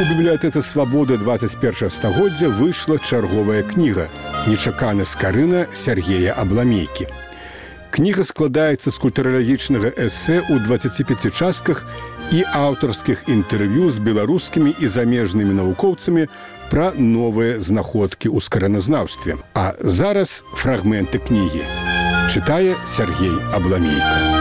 У бібліятэцы «Свабоды» 21 стагоддзя выйшла чарговая кніга «Нечакана скарына» Сергея Абламейкі. Кніга складаецца з культуралагічнага эсэ ў 25 частках і аўтарскіх інтэрв'ю з беларускімі і замежнымі навукоўцамі пра новыя знаходкі ў скараназнаўстве. А зараз фрагменты кнігі. Чытае Сергей Абламейка.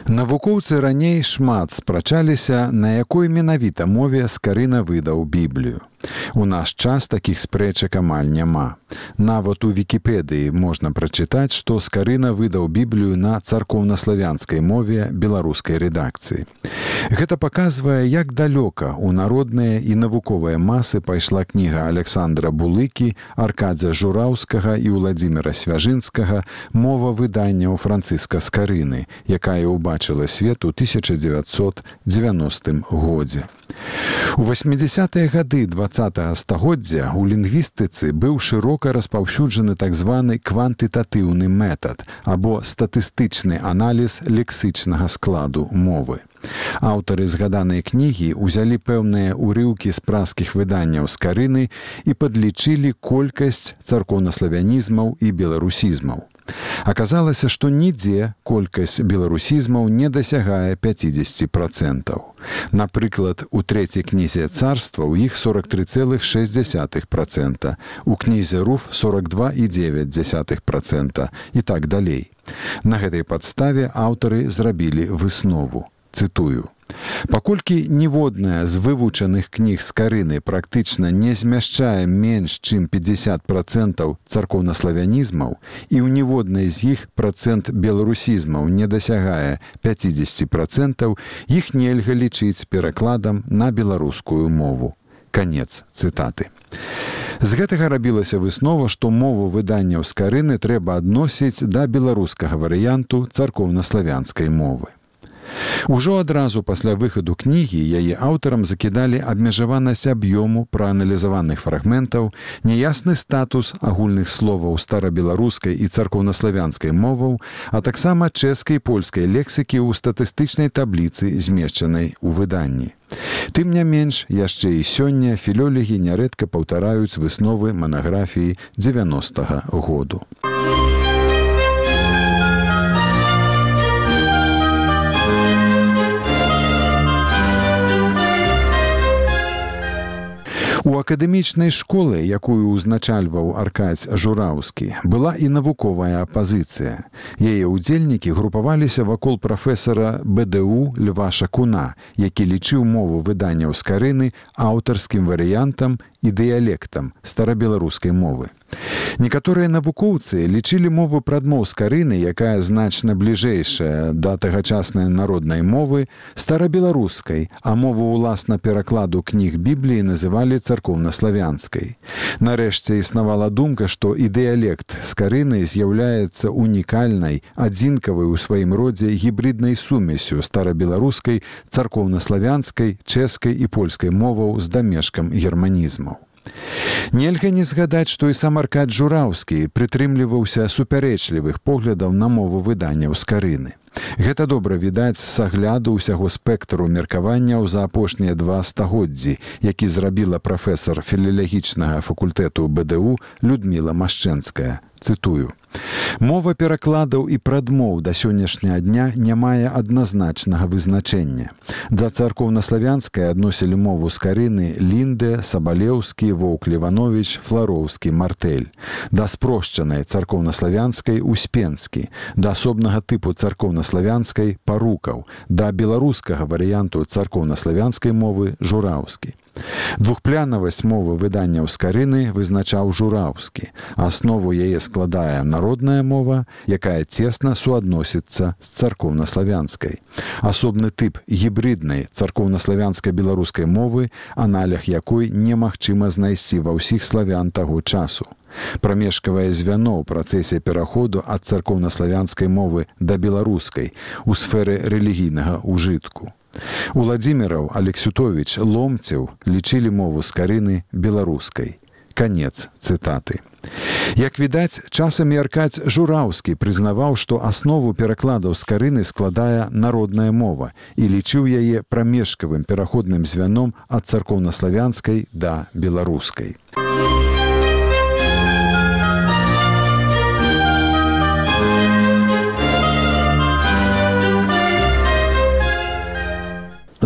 Навукоўцы раней шмат спрачаліся, на якой менавіта мове скарына выдаў Біблію. У наш час такіх спрэчак амаль няма. Нават у Вікіпедыі можна прачытаць, што скарына выдаў Біблію на царкоўнаславянскай мове беларускай рэдакцыі. Гэта паказвае, як далёка ў народныя і навуковыя масы пайшла кніга Александра Булыкі, Аркадзя Жураўскага і Уладзіміра Свяжынскага «Мова выдання ў Францыска Скарыны», якая ўбачыла свет у 1990 годзе. У 80-е гады 20-го стагоддзя ў лінгвістыцы быў шырока распаўсюджаны так званы квантытатыўны метад або статыстычны аналіз лексычнага складу мовы. Аўтары згаданай кнігі ўзялі пэўныя ўрыўкі з праскіх выданняў скарыны і падлічылі колькасць царкоўнаславянізмаў і беларусізмаў. Аказалася, што нідзе колькасць беларусізмаў не дасягае 50%. Напрыклад, у трэцяй кнізе царства ў іх 43,6%, у кнізе Руф 42,9% і так далей. На гэтай падставе аўтары зрабілі выснову. Цытую. Паколькі ніводная з вывучаных кніг скарыны практычна не змяшчае менш, чым 50% царкоўнаславянізмаў і ў ніводнай з іх працэнт беларусізмаў не дасягае 50%, іх нельга лічыць перакладам на беларускую мову. Канец цытаты. З гэтага рабілася выснова, што мову выданняў скарыны трэба адносіць да беларускага варыянту царкоўнаславянскай мовы. Ужо адразу пасля выхаду кнігі яе аўтарам закідалі абмежаванасць аб'ёму прааналізаваных фрагментаў, няясны статус агульных словаў старабеларускай і царкоўнаславянскай моваў, а таксама чэшскай і польскай лексікі ў статыстычнай табліцы, змешчанай у выданні. Тым не менш, яшчэ і сёння філёлегі нярэдка паўтараюць высновы манаграфіі 90-го году. У акадэмічнай школы, якую ўзначальваў Аркадзь Жураўскі, была і навуковая апазіцыя. Яе ўдзельнікі групаваліся вакол прафесара БДУ Льва Шакуна, які лічыў мову выданняў скарыны аўтарскім варыянтам і дыялектам старабеларускай мовы. Некаторыя навукоўцы лічылі мову прадмоў скарыны, якая значна бліжэйшая да тагачаснай народнай мовы, старабеларускай, а мову ўласна перакладу кніг Бібліі называлі царкоўнаславянскай. Нарэшце існавала думка, што і дыялект скарыны з'яўляецца унікальнай, адзінкавай у сваім родзе гібриднай сумесю старабеларускай, царкоўнаславянскай, чэшскай і польскай моваў з дамешкам германізмаў. Нельга не згадаць, што і сам Аркадзь Жураўскі прытрымліваўся супярэчлівых поглядаў на мову выданняў скарыны. Гэта добра відаць з агляду ўсяго спектру меркаванняў за апошнія 2 стагоддзі, які зрабіла прафесар філалагічнага факультэту БДУ Людміла Машчэнская. Цытую. «Мова перакладаў і прадмоў да сённяшняга дня не мае адназначнага вызначэння. Да царкоўнаславянскай адносілі мову скарыны Лінде, Сабалеўскі, Воўк-Левановіч, Флароўскі, Мартэль. Да спрошчанай царкоўнаславянскай Успенскі, да асобнага тыпу царкоўнаславянскай Парукаў, да беларускага варыянту царкоўнаславянскай мовы Жураўскі. Двухплянавасць мовы выданняў скарыны вызначаў Жураўскі. Аснову яе складае народная мова, якая цесна суадносіцца з царкоўнаславянскай. Асобны тып гібриднай царкоўнаславянскай беларускай мовы, аналог якой немагчыма знайсці ва ўсіх славян таго часу. Прамежкавае звяно ў працэсе пераходу ад царкоўнаславянскай мовы да беларускай у сферы рэлігійнага ўжытку. Уладзіміраў, Алексютовіч, Ломцеў лічылі мову скарыны беларускай. Канец цытаты. Як відаць, часамі Аркадзь Жураўскі прызнаваў, што аснову перакладаў з карыны складае народная мова і лічыў яе прамежкавым пераходным звяном ад царкоўнаславянскай да беларускай.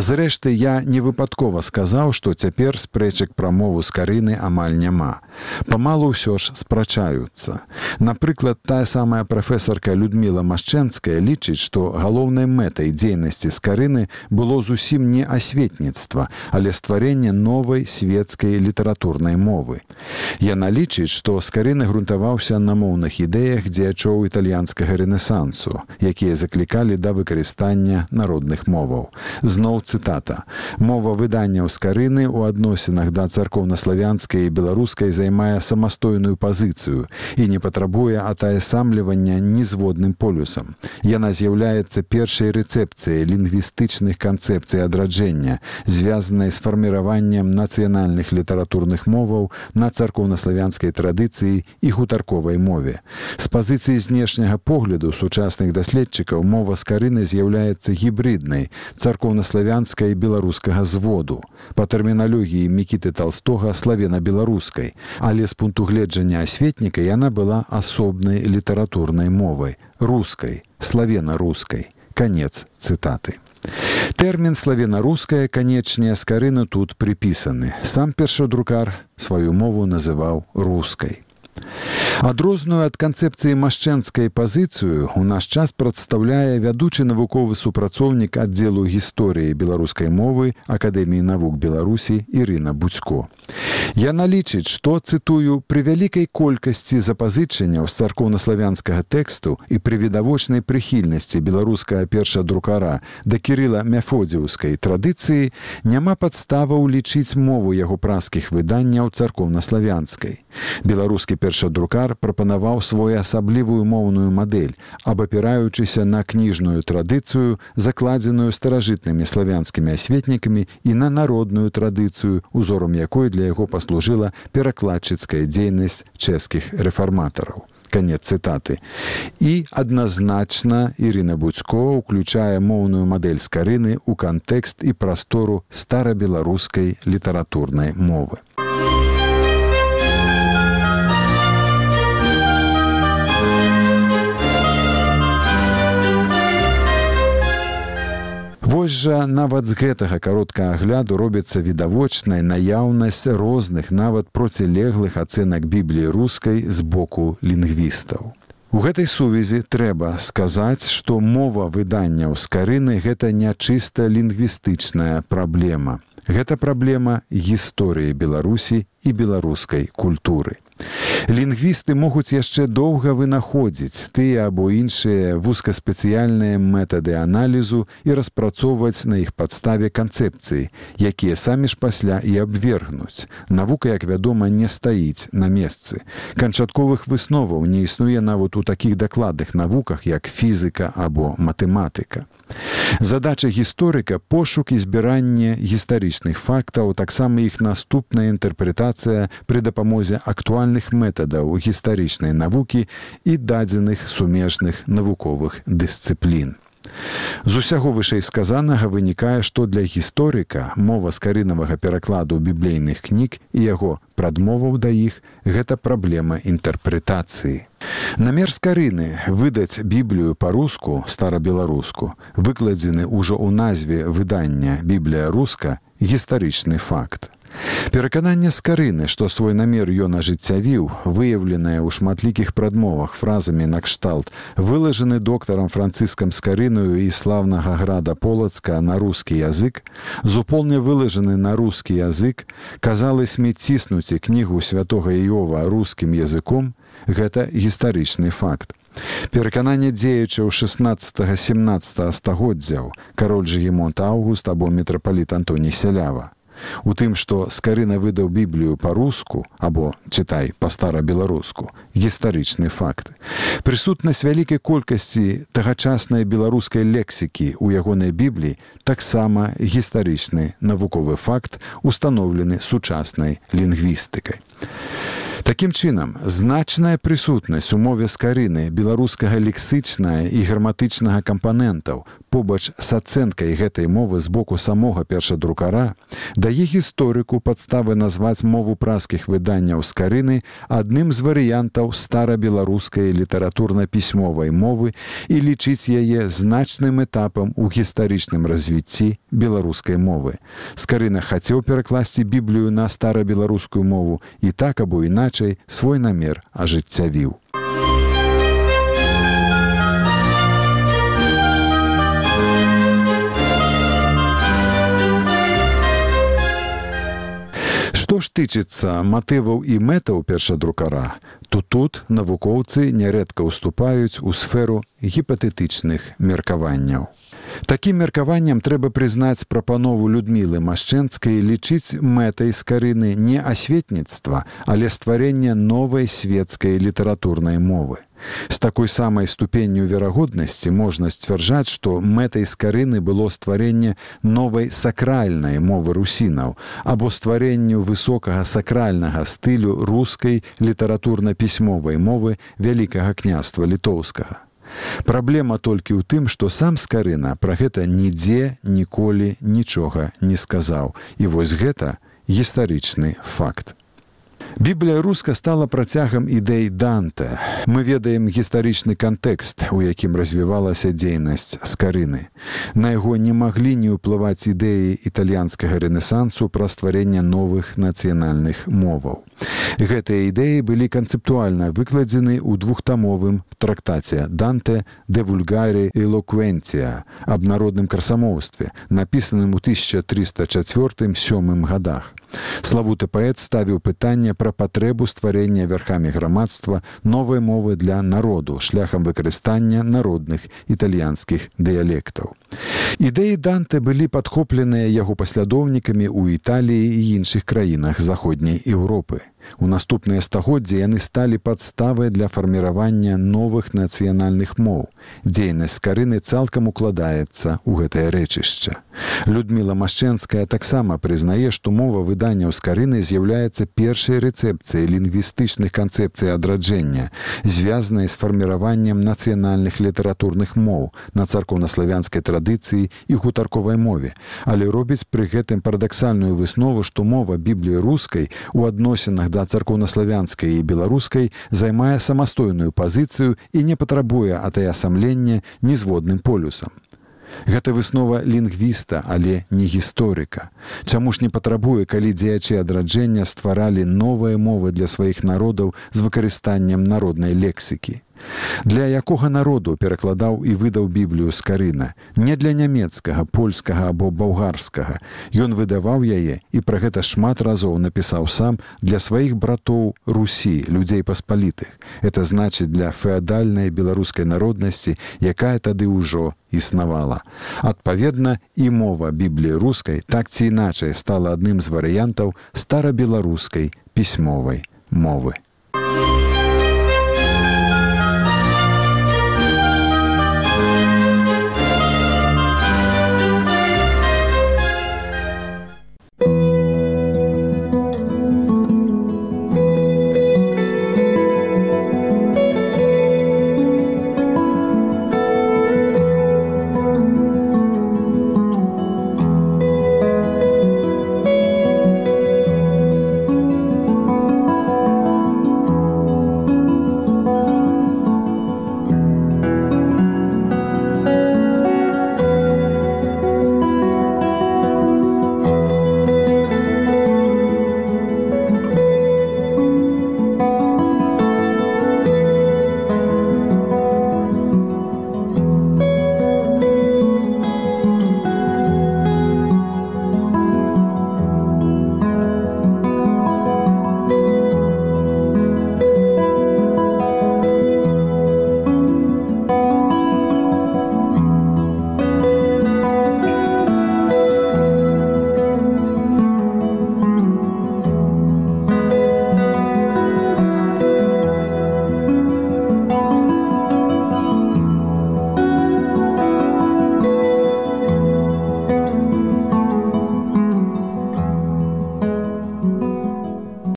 Зрэшты, я не выпадкова сказаў, што цяпер спрэчак пра мову з карыны амаль няма. Памалу ўсё ж спрачаюцца. Напрыклад, тая самая прафесарка Людміла Машчэнская лічыць, што галоўнай мэтай дзейнасці з карыны было зусім не асветніцтва, але стварэнне новай свецкай літаратурнай мовы. Яна лічыць, што з карыны грунтаваўся на моўных ідэях дзеячоў італьянскага рэнесансу, якія заклікалі да выкарыстання народных моваў. Зноў цытата. «Мова выданняў з карыны ў адносінах да царкоўнаславянскай і беларускай займае самастойную пазіцыю і не патрабуе атаясамлівання нізводным полюсам. Яна з'яўляецца першай рэцэпцыяй лінгвістычных канцэпцый адраджэння, звязанай з фарміраваннем нацыянальных літаратурных моваў на царкоўнаславянскай традыцыі і гутарковай мове. З пазіцыі знешняга погляду сучасных даследчыкаў мова з карыны з'яўляецца гібриднай, царкоўнаславянскай і беларускага зводу. Па тэрміналогіі Мікіты Талстога славена-беларускай, але з пункту гледжання асветніка яна была асобнай літаратурнай мовай, рускай, славена-рускай. Канец цытаты. Тэрмін славена-руская, канечне, з карыны тут прыпісаны. Сам першадрукар сваю мову называў рускай. Адрозную ад канцэпцыі машчэнскай пазіцыю ў наш час прадстаўляе вядучы навуковы супрацоўнік аддзелу гісторыі беларускай мовы Акадэміі навук Беларусі Ірына Буцько. Яна лічыць, што, цытую, «пры вялікай колькасці запазычанняў з царкоўнаславянскага тэксту і пры відавочнай прыхільнасці беларускага першадрукара да кірыла-мяфодзіўскай традыцыі няма падставаў лічыць мову яго праскіх выданняў царкоўнаславянскай. Беларускі першадрукар прапанаваў своеасаблівую моўную мадэль, абапіраючыся на кніжную традыцыю, закладзеную старажытнымі славянскімі асветнікамі і на народную традыцыю, узорам якой для яго паслужыла перакладчыцкая дзейнасць чэшскіх рэфарматараў». Канец цытаты. І адназначна Ірына Буцько ўключае моўную мадэль з карыны ў кантэкст і прастору старабеларускай літаратурнай мовы. Вось жа нават з гэтага кароткага агляду робіцца відавочная наяўнасць розных, нават процілеглых ацэнак Бібліі рускай з боку лінгвістаў. У гэтай сувязі трэба сказаць, што мова выданняў з карыны – гэта не чыста лінгвістычная праблема. Гэта праблема гісторыі Беларусі і беларускай культуры. Лінгвісты могуць яшчэ доўга вынаходзіць тыя або іншыя вузкаспецыяльныя метады аналізу і распрацоўваць на іх падставе канцэпцыі, якія самі ж пасля і абвергнуць. Навука, як вядома, не стаіць на месцы. Канчатковых высноваў не існуе нават у такіх дакладных навуках, як фізіка або матэматыка. Задача гісторыка – пошук і збіранне гістарычных фактаў, таксама іх наступная інтэрпрэтацыя пры дапамозе актуальных метадаў гістарычнай навукі і дадзеных сумежных навуковых дысцыплін. З усяго вышэйсказанага вынікае, што для гісторыка мова з карынавага перакладу біблейных кніг і яго прадмоваў да іх – гэта праблема інтэрпрэтацыі. Намер з карыны выдаць Біблію па-руску, старабеларуску, выкладзены ўжо ў назве выдання «Біблія руска» – гістарычны факт. Перакананне з карыны, што свой намер ён ажыццявіў, выяўленае ў шматлікіх прадмовах фразамі накшталт «вылажаны доктарам Францыскам Скарынаю і славнага града Полацка на рускі язык», «зуполне вылажаны на рускі язык», «казалось-ми ціснуць кнігу святога Іова рускім языком» – гэта гістарычны факт. Перакананне дзеячаў 16-17 стагоддзяў, кароль Жыгімонт Аўгуст або мітрапаліт Антоній Сялява. У тым, што Скарына выдаў Біблію па-руску, або, чытай, па-стара-беларуску, гістарычны факт. Прысутнасць вялікай колькасці тагачаснай беларускай лексікі ў ягонай Бібліі таксама гістарычны навуковы факт, устаноўлены сучаснай лінгвістыкай. Такім чынам, значная прысутнасць у мове скарыны беларускага лексычнага і граматычнага кампанентаў побач з ацэнкай гэтай мовы з боку самога першадрукара дае гісторыку падставы назваць мову празкіх выданняў скарыны адным з варыянтаў старабеларускай літаратурна-пісьмовай мовы і лічыць яе значным этапам у гістарычным развіцці беларускай мовы. Скарына хацеў перакласці Біблію на старабеларускую мову і так або іначай свой намер ажыццявіў. Што ж тычыцца матываў і мэтаў першадрукара, то тут навукоўцы нярэдка ўступаюць у сферу гіпатэтычных меркаванняў. Такім меркаваннем трэба прызнаць прапанову Людмілы Машчэнскай лічыць мэтай скарыны не асветніцтва, але стварэнне новай светскай літаратурнай мовы. З такой самай ступенню верагоднасці можна сцвярджаць, што мэтай скарыны было стварэнне новай сакральнай мовы русінаў або стварэнню высокага сакральнага стылю рускай літаратурна-пісьмовай мовы Вялікага княства літоўскага. Праблема толькі ў тым, што сам скарына пра гэта нідзе ніколі нічога не сказаў. І вось гэта гістарычны факт. Біблія руска стала працягам ідэй Данте. Мы ведаем гістарычны кантэкст, у якім развівалася дзейнасць скарыны. На яго не маглі не ўплываць ідэі італьянскага рэнесансу пра стварэнне новых нацыянальных моваў. Гэтыя ідэі былі канцэптуальна выкладзены ў двухтамовым трактаце Данте «De vulgare eloquentia» аб народным красамоўстве, напісаным у 1304-7 гадах. Славуты паэт ставіў пытанне пра патрэбу стварэння верхамі грамадства новай мовы для народу шляхам выкарыстання народных італьянскіх дыялектаў. Ідэі Данте былі падхопленыя яго паслядоўнікамі ў Італіі і іншых краінах заходняй Еўропы. У наступныя стагоддзі яны сталі падставай для фарміравання новых нацыянальных моў. Дзейнасць скарыны цалкам укладаецца ў гэтае рэчышча. Людміла Машчэнская таксама прызнае, што мова выданняў скарыны з'яўляецца першай рэцэпцыяй лінгвістычных канцэпцый адраджэння, звязанай з фарміраваннем нацыянальных літаратурных моў на царкоўнаславянскай традыцыі і гутарковай мове, але робіць пры гэтым парадаксальную выснову, што мова Бібліі рускай у адносінах да царкоўнаславянскай і беларускай займае самастойную пазіцыю і не патрабуе атаясамлення нізводным полюсам. Гэта выснова лінгвіста, але не гісторыка. Чаму ж не патрабуе, калі дзеячы адраджэння стваралі новыя мовы для сваіх народаў з выкарыстаннем народнай лексікі? Для якога народу перакладаў і выдаў Біблію скарына? Не для нямецкага, польскага або балгарскага. Ён выдаваў яе і пра гэта шмат разоў напісаў сам для сваіх братоў Русі, людзей паспалітых. Это значыць для феадальнай беларускай народнасці, якая тады ўжо існавала. Адпаведна, і мова Бібліі рускай так ці іначай стала адным з варыянтаў старабеларускай пісьмовай мовы.